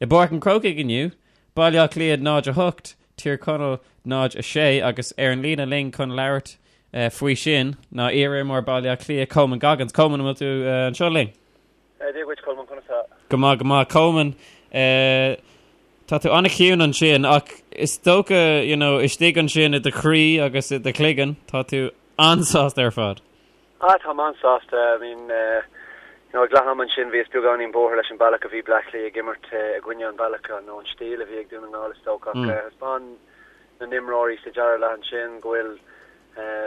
I bPáirc an Chrócaigh inniu, Baile Átha Cliath 0-8, Tír Chonaill 0-6 agus ar an líne linn chun labhairt faoi sin ná iar-imreoir Baile Átha Cliath, Coman Goggins. Coman, an bhfuil tú anseo linn? Dia dhuit, Colmán, conas tá? Go maith, go maith. Coman, tá tú an-chiúin ansin ach is dócha, you know, istigh ansin i do chroí agus i do chloigeann, tá tú an-sásta ar fad. Ah, táim an-sásta. I mean, you know, ag leath ama ansin bhíos beagáinín buartha leis an bealach a bhí Bleá Cliath ag imirt i gcoinne an bealach nó an stíl a bhí ag Dún na nGall is dócha ach thaispeáin na n-imreoirí sa dara leath ansin go bhfuil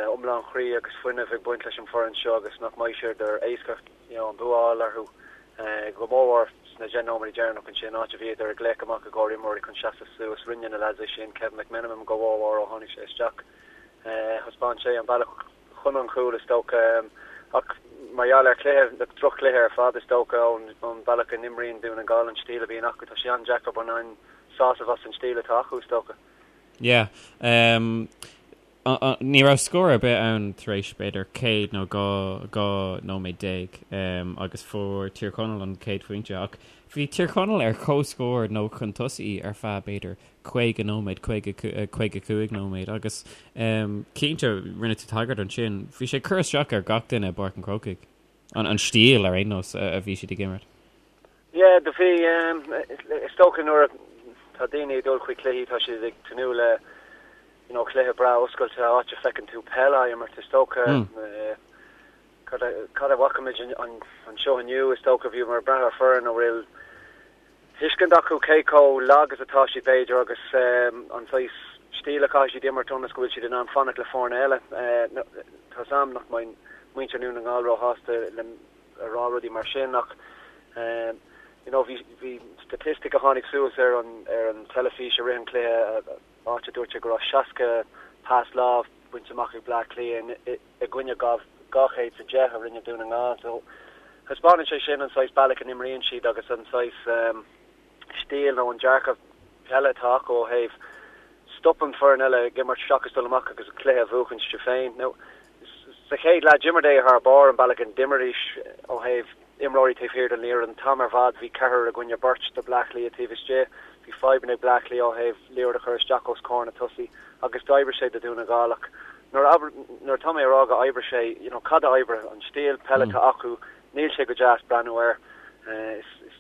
iomlán chroí agus fuinneamh ag baint leis an foireann seo agus nach mbeidh sé éasca you know, an bua a fháil orthu go mórmhór sna 10 nóiméad deireanach ansin, áit a bhíodar ag glaoch amach i gcomhair imreoirí chun seasamh suas. Rinne na lads é sin, Kevin McMenamin go mórmhór ó tháinig sé isteach. Thaispeáin sé an bealach chun an chúil is dócha, ach mar gheall ar chluiche, droch-chluiche ar fad is dócha, ón bealach a n-imríonn Dún na nGall, an stíl a bhíonn acu, tá sé an-deacair baineann sásamh as an stíl atá acu is dócha. Yeah. Ní raibh scór ar bith ann tar éis b'fhéidir 100 nó 12 nóiméad agus fuair Tír Chonaill an chéad phointe ach bhí Tír Chonaill ar comhscór nó chun tosaigh ar feadh b'fhéidir 50 nóiméad, 50, 55 nóiméad agus cinnte, rinne tú tagairt ansin, bhí sé ag cur isteach ar gach duine i bPáirc an Chrócaigh, an stíl ar aon nós a bhí siad ag imirt. Yeah, do bhí, is dócha nuair atá daoine ag dul chuig cluichí tá siad ag tnúth le you know cluiche breá oscailte, áit a feiceann tú peil á imirt, is dócha. Cad a bhfaca muid anseo inniu, is dócha, bhíomar ag brath ar foireann a bhfuil tuiscint acu cé chomh lag is atá siad, b'fhéidir, agus an saghas stíl a chaithfidh siad imirt ionas go bhfuil siad in ann fanacht le foirne eile. Tá's a'm nach mbeidh muintir Dhún na nGall róshásta liom a rá rudaí mar sin ach you know bhí bhí statistic a tháinig suas ar an ar an teilifís i rith an chluiche áit a dúirt sé go raibh 60 pas lámh bainte amach ag Bleá Cliath i i gcoinne 210 a rinne Dún na nGall. So thaispeánann sé sin an saghas bealach a n-imríonn siad agus an saghas stíl nó an dearcadh peile atá acu ó thaobh stop an foireann eile ag imirt seachas dul amach agus an cluiche a bhuachan siad féin. Now sa chéad leath d'imir thar barr an bealach a d'imríodis ó thaobh imreoirí taobh thiar den liathróid. An t-am ar fad bhí ceathrar i gcoinne beirt do Bleá Cliath taobh istigh. Bhí fadhbanna ag Bleá Cliath ó thaobh liathróid a chur isteach os comhair na tosaí agus d'oibrigh sé do Dhún na nGall ach nuair a nuair atá mé ag rá go oibrigh sé, you know, cad a oibrigh? An stíl peile atá acu, níl sé go deas breathnú air. Is is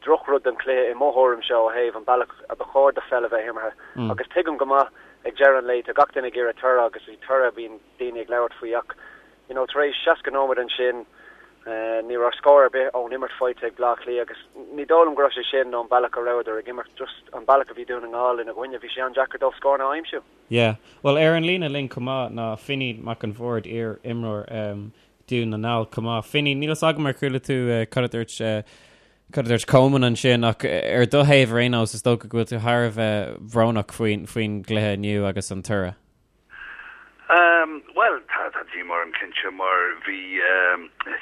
drochrud don chluiche i mo thuairimse ó thaobh an bealach a ba chóir do pheil a bheith imeartha. Agus tuigim go maith ag deireadh an lae tá gach duine ag iarraidh toradh agus is toradh a bhíonn daoine ag labhairt faoi ach you know tar éis 60 nóiméad ansin ní raibh scór ar bith ón imirt faighte ag Bleá Cliath agus ní dóigh liom go raibh sé sin ón bealach a rabhadar ag imirt, just an bealach a bhí Dún na nGall ina gcoinne, bhí sé an-deacair dóibh scóranna a aimsiú. Yeah. Bhuel ar an líne linn chomh maith ná Finín Mac an Bhaird, iar-imreoir Dún na nGall chomh maith. Finín, níl fhios agam ar chuala tú cad a dúirt cad a dúirt Coman ansin ach ar do thaobh ar aon nós is dócha go bhfuil tú thar a bheith bhrónach faoin faoin gcluiche inniu agus an toradh. Bhuel, tá tá díomá orm cinnte mar bhí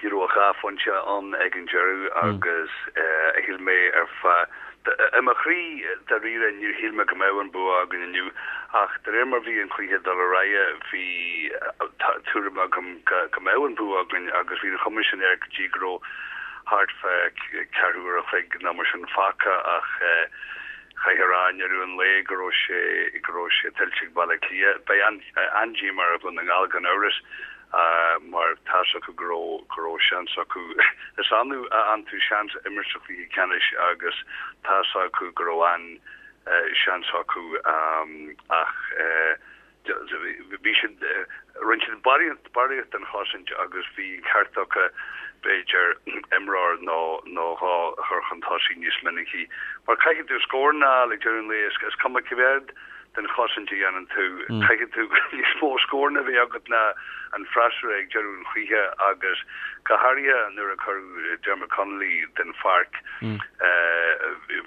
you know dhá phointe ann ag an deireadh agus shíl mé ar feadh i mo chroí dáiríre níor shíl mé go mbeadh an bua againn inniu ach de réir mar bhí an cluiche ag dul ar aghaidh bhí tuairim agam go go mbeadh an bua againn agus bhí an chuma sin air go dtí go raibh thart fá ceathrú uair a chloig nó mar sin fágtha ach Chaithfidh a rá i ndeireadh an lae go raibh sé go raibh sé tuillte ag Baile Átha Cliath. Beidh an-díomá ar Dhún na nGall gan amhras mar tá's acu go raibh go raibh seans acu. Is annamh a fhaigheann tú seans imirt sa chluiche ceannais agus tá's acu go raibh an-seans acu ach Bhí siad, rinne siad barraíocht den chosaint agus bhí an ceart acu, b'fhéidir, imreoir nó nó dhó a chur chun tosaigh níos minicí. Mar caithfidh tú scóranna a fháil ag deireadh an lae, is cuma cé mhéad den chosaint a dhéanann tú, caithfidh tú níos mó scóranna a bheith agat ná an freasúra ag deireadh an chluiche agus go háirithe nuair a cuireadh Dermot Connolly den pháirc.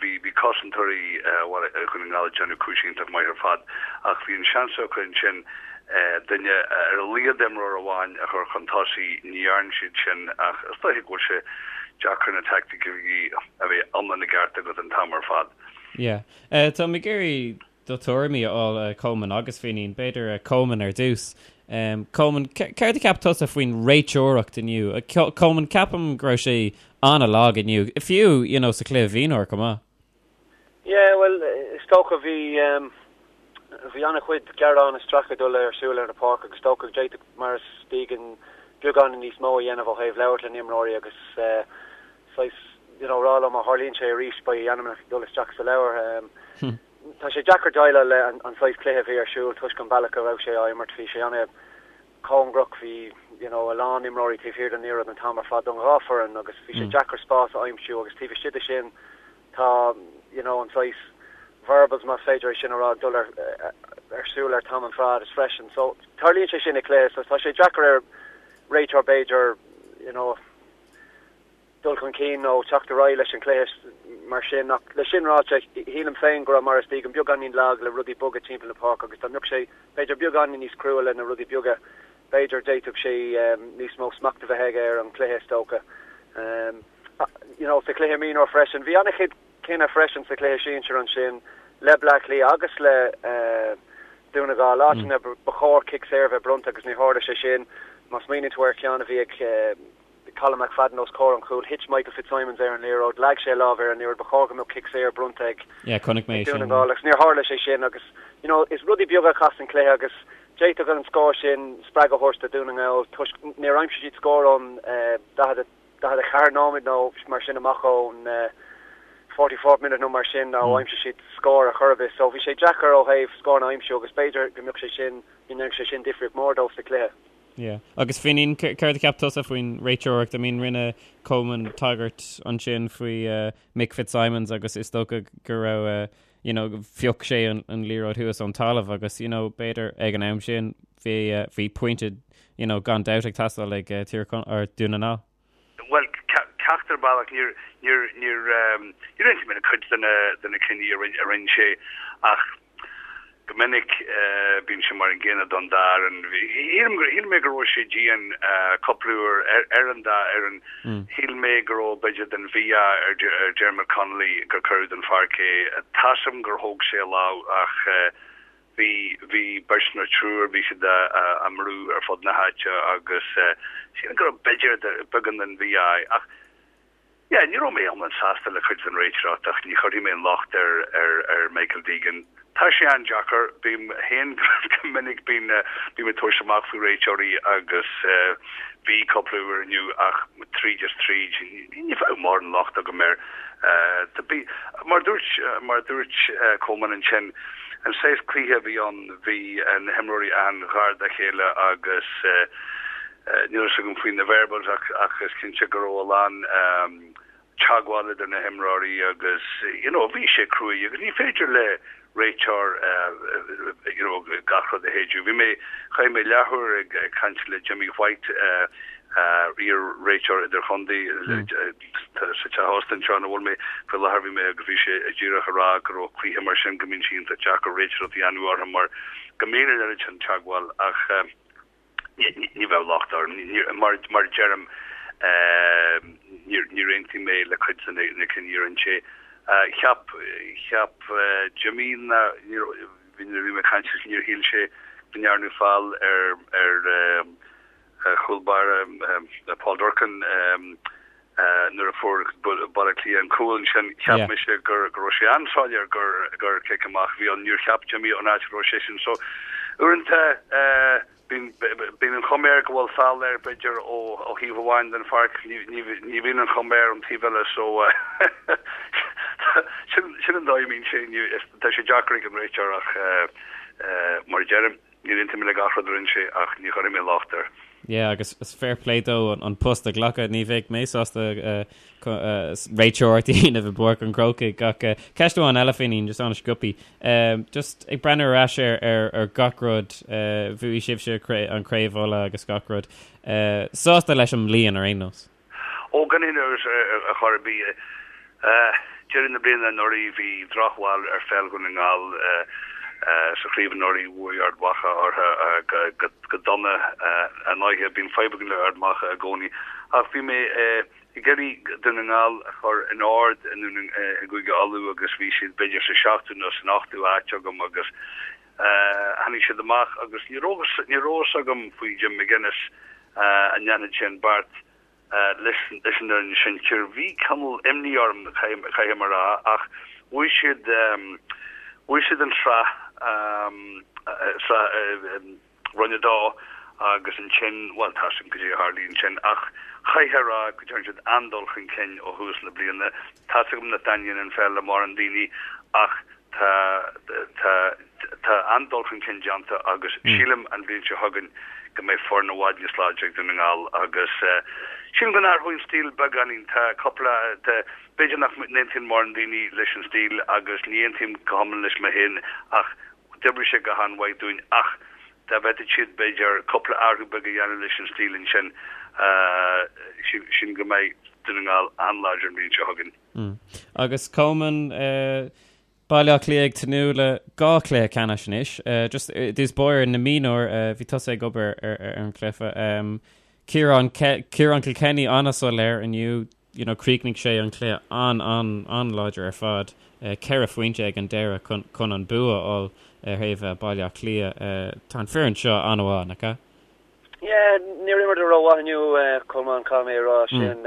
Bhí bhí cosantóirí Dhún na nGall ag déanamh cúis iontach maith ar fad ach bhí an seans acu ansin duine ar a laghad imreoir amháin a chur chun tosaigh. Ní dhearna siad sin ach is dóiche go bhfuil sé deacair na teaicticí a bheith iomlán i gceart agat an t-am ar fad. Yeah. Tá mé ag iarraidh do thuairimí a fháil, Coman agus Finín. B'fhéidir Coman ar dtús. Coman, céard a cheap tusa faoin réiteoireacht inniu? Coman, ceapaim go raibh sé an-lag inniu, fiú, you know, sa chluiche mhionúir chomh maith. Yeah, bhuel, is dócha bhí bhí an-chuid gearán is stracadh ag dul ar siúl ar an pháirc agus is dócha go d'fhéadfadh Maurice Deegan beagán níos mó a dhéanamh ó thaobh labhairt le na imreoirí agus saghas you know rá leo má tharlaíonn sé arís beidh a ainmneacha ag dul isteach sa leabhar. Tá sé deacair déileáil le an saghas cluiche a bhí ar siúl toisc an bealach a raibh sé á imirt. Bhí sé ana cóngarach, bhí you know a lán imreoirí taobh thiar den liathróid an t-am ar fad don dhá foireann agus bhí sé deacair spás a aimsiú agus taobh istigh de sin tá you know an saghas verbals más féidir é sin a rá ag dul ar ar siúl ar t-am ar fad is freisin. So tarlaíonn sé sin i cluiche so tá sé deacair ar réiteoir b'fhéidir you know dul chun cinn nó teacht ar aghaidh leis an chluiche mar sin ach le sin ráite shílim féin go raibh Maurice Deegan beagáinín lag le rudaí boga timpeall na páirce agus dá mbeadh sé b'fhéidir beagáinín níos crua le na rudaí beaga b'fhéidir d'fhéadfadh sé níos mó smacht a bheith aige ar an chluiche is dócha. You know, sa chluiche mionúr freisin, bhí an-chuid cinneadh freisin sa chluiche sinsir ansin le Bleá Cliath agus le Dún na nGall, áiteanna ba chóir cic saor a bheith bronnta agus ní tharla sé sin. Má smaoiníonn tú ar cheann a bhí ag Colm McFadden os comhair an chúil, thit Michael Fitzsimons ar an liathróid, leag sé a lámh ar an liathróid, ba chóir go mbeadh cic saor bronnta ag Dún na nGall agus níor tharla sé sin agus you know is rudaí beaga a chasann cluiche agus d'fhéadfadh an scór sin spreagadh a thabhairt do Dhún na nGall toisc níor aimsigh siad scór ón 44 nóiméad nó mar sin amach ón 44th minute nó mar sin ó aimsigh siad scór ar chor ar bith so bhí sé deacair ó thaobh scór a aimsiú agus b'fhéidir go mbeadh sé sin go ndéanfadh sé sin difríocht mór dóibh sa chluiche. Yeah. Agus Finín, céard a cheap tusa faoin réiteoireacht? I mean, rinne Coleman tagairt ansin faoi uh, Mick Fitzsimons agus is dócha go raibh uh, you know, phioc sé an, an liathróid thuas ón talamh agus you know, b'fhéidir ag an am sin bhí uh, bhí pointe you know, gan dabht ag teastáil ag uh, Tír or Dún na nGall. Bhuel, ceacht ar bealach, níor, níor, níor, níor aontaigh mé le cuid de na, de na cinní a rinne, a rinne sé ach go minic bíonn sé mar an gcéanna don dá fhoireann. Shíl, shíl mé go raibh sé dian cúpla uair ar, ar an dá fhoireann. Shíl mé go raibh b'fhéidir den mhí-ádh ar, ar Dermot Connolly gur cuireadh den pháirc é. Tá 's agam gur thóg sé a lámh ach Bhí, bhí beirt nó triúr, bhí siad á mbrú ar fud na háite agus sílim go raibh b'fhéidir beagán den mhí-ádh ach yeah, ní raibh mé iomlán sásta le cuid den réiteoireacht ach ní chuirfidh mé an locht ar, ar, ar Michael Deegan. Tá sé an-deacair, bím féin go minic bíonn, bím ag tabhairt amach faoi réiteoirí agus bhí cúpla uair inniu ach tríd is tríd ní bheadh mórán locht agam air. Mar dúirt, mar dúirt Coleman ansin, An saghas cluiche a bhí ann, bhí na himreoirí an-ghar dá chéile agus níl a fhios agam faoi na verbals ach ach is cinnte go raibh a lán teagmháil idir na himreoirí agus you know bhí sé cruaidh agus ní féidir le réiteoir you know gach rud a shéideadh. Bhí mé, chaith mé leathuair ag caint le Jimmy White, iar-réiteoir idirchontae sa teach ósta anseo ina bhfuil mé faoi láthair bhí mé agus bhí sé díreach a rá go raibh cluiche mar sin go mbíonn sé iontach deacair réiteoireacht a dhéanamh orthu mar go mbíonn an oiread sin teagmháil ach ní bheadh locht orm mar mar a deirim níor níor aontaigh mé le cuid de na cinní a rinne sé. Cheap cheap Jimmy na níor bhí nuair a bhí mé ag caint leis níor shíl sé go ndearnadh feall ar ar chúl báire Paul Durcan nuair a fuair Baile Átha Cliath an cúl ansin. Cheap mise go raibh sé an-soiléir gur cic amach a bhí ann. Níor cheap Jimmy ón áit a raibh seisean. So uaireanta bíonn an chuma air go bhfuil feall air b'fhéidir ó thaobh amháin den pháirc. Ní bhíonn an chuma air ón taobh eile. So sin an dóigh a mbíonn sé. Tá sé deacair ag an réiteoir ach mar a deirim, Níor aontaigh mé le gach rud a rinne sé ach ní chuirfidh mé locht air. Yeah, agus is fair play dó an post a ghlacadh. Ní bheadh mé sásta réiteoireacht a dhéanamh i bPáirc an Chrócaigh ach ceist amháin eile Finín, just an-sciobtha. Just ag breathnú ar ais ar ar gach rud, bhuaigh sibhse an Craobh Uladh agus gach rud. Sásta leis an mbliain ar aon nós? Ó, gan aon amhras ar chor ar bith. Deireadh na bliana anuraidh bhí drochbhail ar pheil Dhún na nGall sa chraobh anuraidh, bhuaigh Ard Mhacha orthu go dona ar ndóighe. Bíonn fadhb againn le Ard Mhacha i gcónaí. Ach bhí mé ag iarraidh Dún na nGall a chur in ord i gCúige Uladh agus bhí siad b'fhéidir sa seachtú nó san ochtú áit agam agus tháinig siad amach agus ní raibh a fhios agam faoi Jim McGuinness an ndéanfadh sé an beart leis an fhoireann sinsir. Bhí cineál imní orm, caithfidh mé a rá, ach Bhuaigh siad bhuaigh siad an tsraith sraith Roinn 2 agus ansin, bhuel, tá a fhios againn cad é a tharlaigh ansin ach chaithfeá a rá go dtearn siad an-dul chun cinn ó thús na bliana. Tá a fhios agam nach dtaitníonn an pheil le mórán daoine ach tá tá tá an-dul chun cinn déanta agus sílim an bhliain seo chugainn go mbeidh foireann i bhfad níos láidre ag Dún na nGall agus sílim go n-athróidh an stíl beagáinín. Tá cúpla tá b'fhéidir nach n-aontaíonn mórán daoine leis an stíl agus ní aontaím go hiomlán leis mé féin ach d'oibrigh sé go han-mhaith dúinn ach dá bhféadfadh siad b'fhéidir cúpla athrú beag a dhéanamh leis an stíl ansin sílim go mbeidh Dún na nGall an-láidir an bhliain seo chugainn. Agus Coleman, Baile Átha Cliath ag tnúth le dhá chluiche ceannais anois. Just i dtús báire na mionúir, bhí tusa ag obair ar an chluiche. Ciarán Ciarán Kilkenny an-soiléir inniu, you know, chríochnaigh sé an cluiche an-an-an-láidir ar fad, 4 phointe ag an deireadh chun chun an bua a fháil ar thaobh Baile Átha Cliath. Tá an foireann seo an-mhaith, nach ea? Yeah, níor imríodar rómhaith inniu, Colmán, caithfidh mé a rá sin.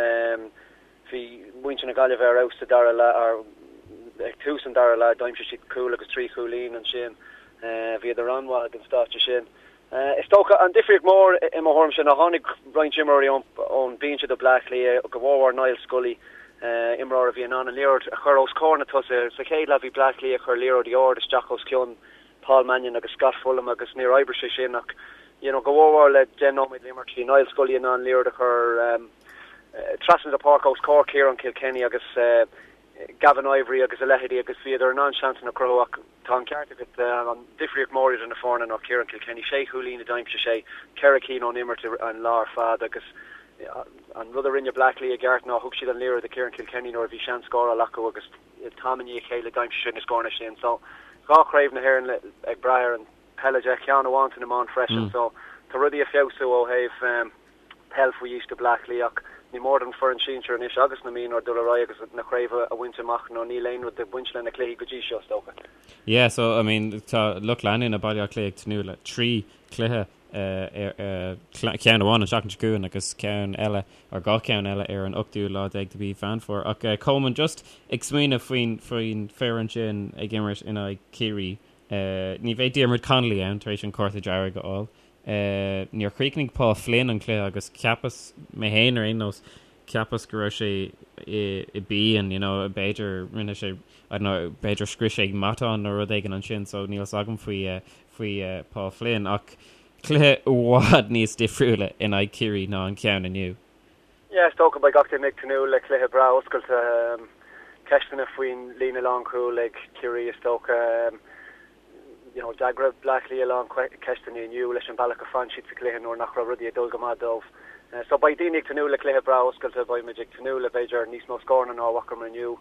Bhí muintir na Gaillimhe ar fheabhas sa dara leath, ag tús an dara leath, d'aimsigh siad cúl agus trí chúilín ansin. Bhíodar an-mhaith ag an stáitse sin. Is dócha, an difríocht mhór i mo thuairimse ná tháinig roinnt imreoirí ón binse do Bleá Cliath, go mhórmhór Niall Scully, imreoir a bhí in ann an liathróid a chur os comhair na tosaithe. Sa chéad leath bhí Bleá Cliath ag cur liathróidí ard isteach os cionn Paul Mannion agus Scott Fullam agus níor oibrigh sé sin ach you know go mhórmhór le 10 nóiméad le imirt bhí Niall Scully in ann liathróid a chur trasna na páirce os comhair Ciarán Kilkenny agus Gavin Ivory agus a leithéidí agus bhíodar in ann seansanna a chruthú ach tá an ceart agat, an difríocht mhór idir na foirne ná Ciarán Kilkenny, sé chúilín a d'aimsigh sé, ceithre cinn ón imirt an lá ar fad agus an rud a rinne Bleá Cliath i gceart ná thug siad an liathróid do Ciarán Kilkenny nuair a bhí seans scóráil acu agus t-am i ndiaidh a chéile d'aimsigh sé na scóranna sin. So dhá chraobh na hÉireann ag brath ar an peil de, ceann amháin san iomáint freisin so tá rudaí ag feabhsú ó thaobh peil faoi aois do Bleá Cliath ach ní mór don foireann sinsir anois agus na mionúir dul ar aghaidh agus na craobh a bhaint amach nó níl aon rud ag baint le na cluichí go dtí seo is dócha. Yeah so I mean tá lucht leanúna Baile Átha Cliath ag tnúth le trí chluiche ceann amháin an tseachtain seo chugainn agus ceann eile or dhá cheann eile ar an ochtú lá déag de mhí Mheán Fómhair. Ach Coleman just ag smaoineamh faoin faoin foireann sin ag imirt in aghaidh Ciarraí ní bheidh Diarmuid Connolly ann tar éis an cárta dearg a fháil. Níor chríochnaigh Paul Flynn an cluiche agus cheapas, mé féin ar aon nós, cheapas go raibh sé i bpian, you know, b'fhéidir rinne sé, I don't know, b'fhéidir scrios sé matán nó rud éigin ansin so níl fhios agam faoi faoi Paul Flynn ach cluiche i bhfad níos difriúla in aghaidh Ciarraí ná an ceann inniu. Yeah, is dócha beidh gach duine ag tnúth le cluiche breá oscailte. Ceisteanna faoin líne lánchúil ag Ciarraí is dócha. You know, d'fhreagair Bleá Cliath a lán ceisteanna inniu leis an bealach a fan siad sa chluiche nuair nach raibh rudaí ag dul go maith dóibh. So beidh daoine ag tnúth le cluiche breá oscailte, beidh muid ag tnúth le b'fhéidir níos mó scóranna ná a bhfacamar inniu.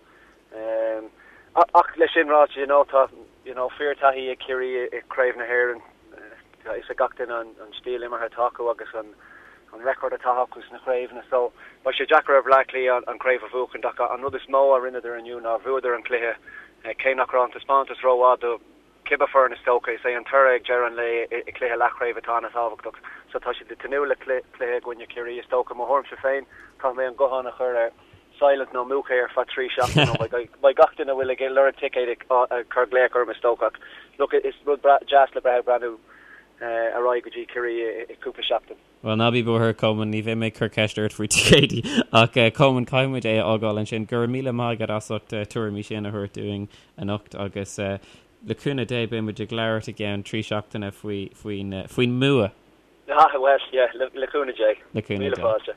Ach leis sin ráite, you know, tá you know, fíorthaithí ag Ciarraí i gCraobh na hÉireann. Tá a fhios ag gach duine an stíl imeartha atá acu agus an an record atá acu sna craobhanna. So beidh sé deacair ar Bhleá Cliath an craobh a bhuachan ach an rud is mó a rinneadar inniu ná bhuadar an cluiche cé nach raibh an taispeántas rómhaith do cibé foireann is dócha. Is é an toradh ag deireadh an lae i gcluiche leathchraoibhe atá an-tábhachtach. So tá siad ag tnúth le cluiche i gcoinne Ciarraí is dócha. Mo thuairimse féin, caithfidh mé an guthán a chur ar silent nó múch é ar feadh trí seachtaine nó beidh gach duine a bhfuil ag lorg ticéid ag cur glaoch orm is dócha. Ach look, is rud deas le breith ag breathnú ar aghaidh go dtí Ciarraí i cúpla seachtain. Bhuel, ná bí buartha, Coleman, ní bheidh mé ag cur ceist ort faoi ticéidí. Ach, Coleman, caithfidh muid é a fhágáil ansin. Go raibh míle maith agat as ucht na tuairimí sin a thabhairt dúinn anocht agus le cúnamh Dé beidh muid ag labhairt i gceann trí seachtaine faoi, faoin, faoin mbua. Ah, bhuel, yeah, le cúnamh Dé. Le cúnamh Dé. Míle fáilte.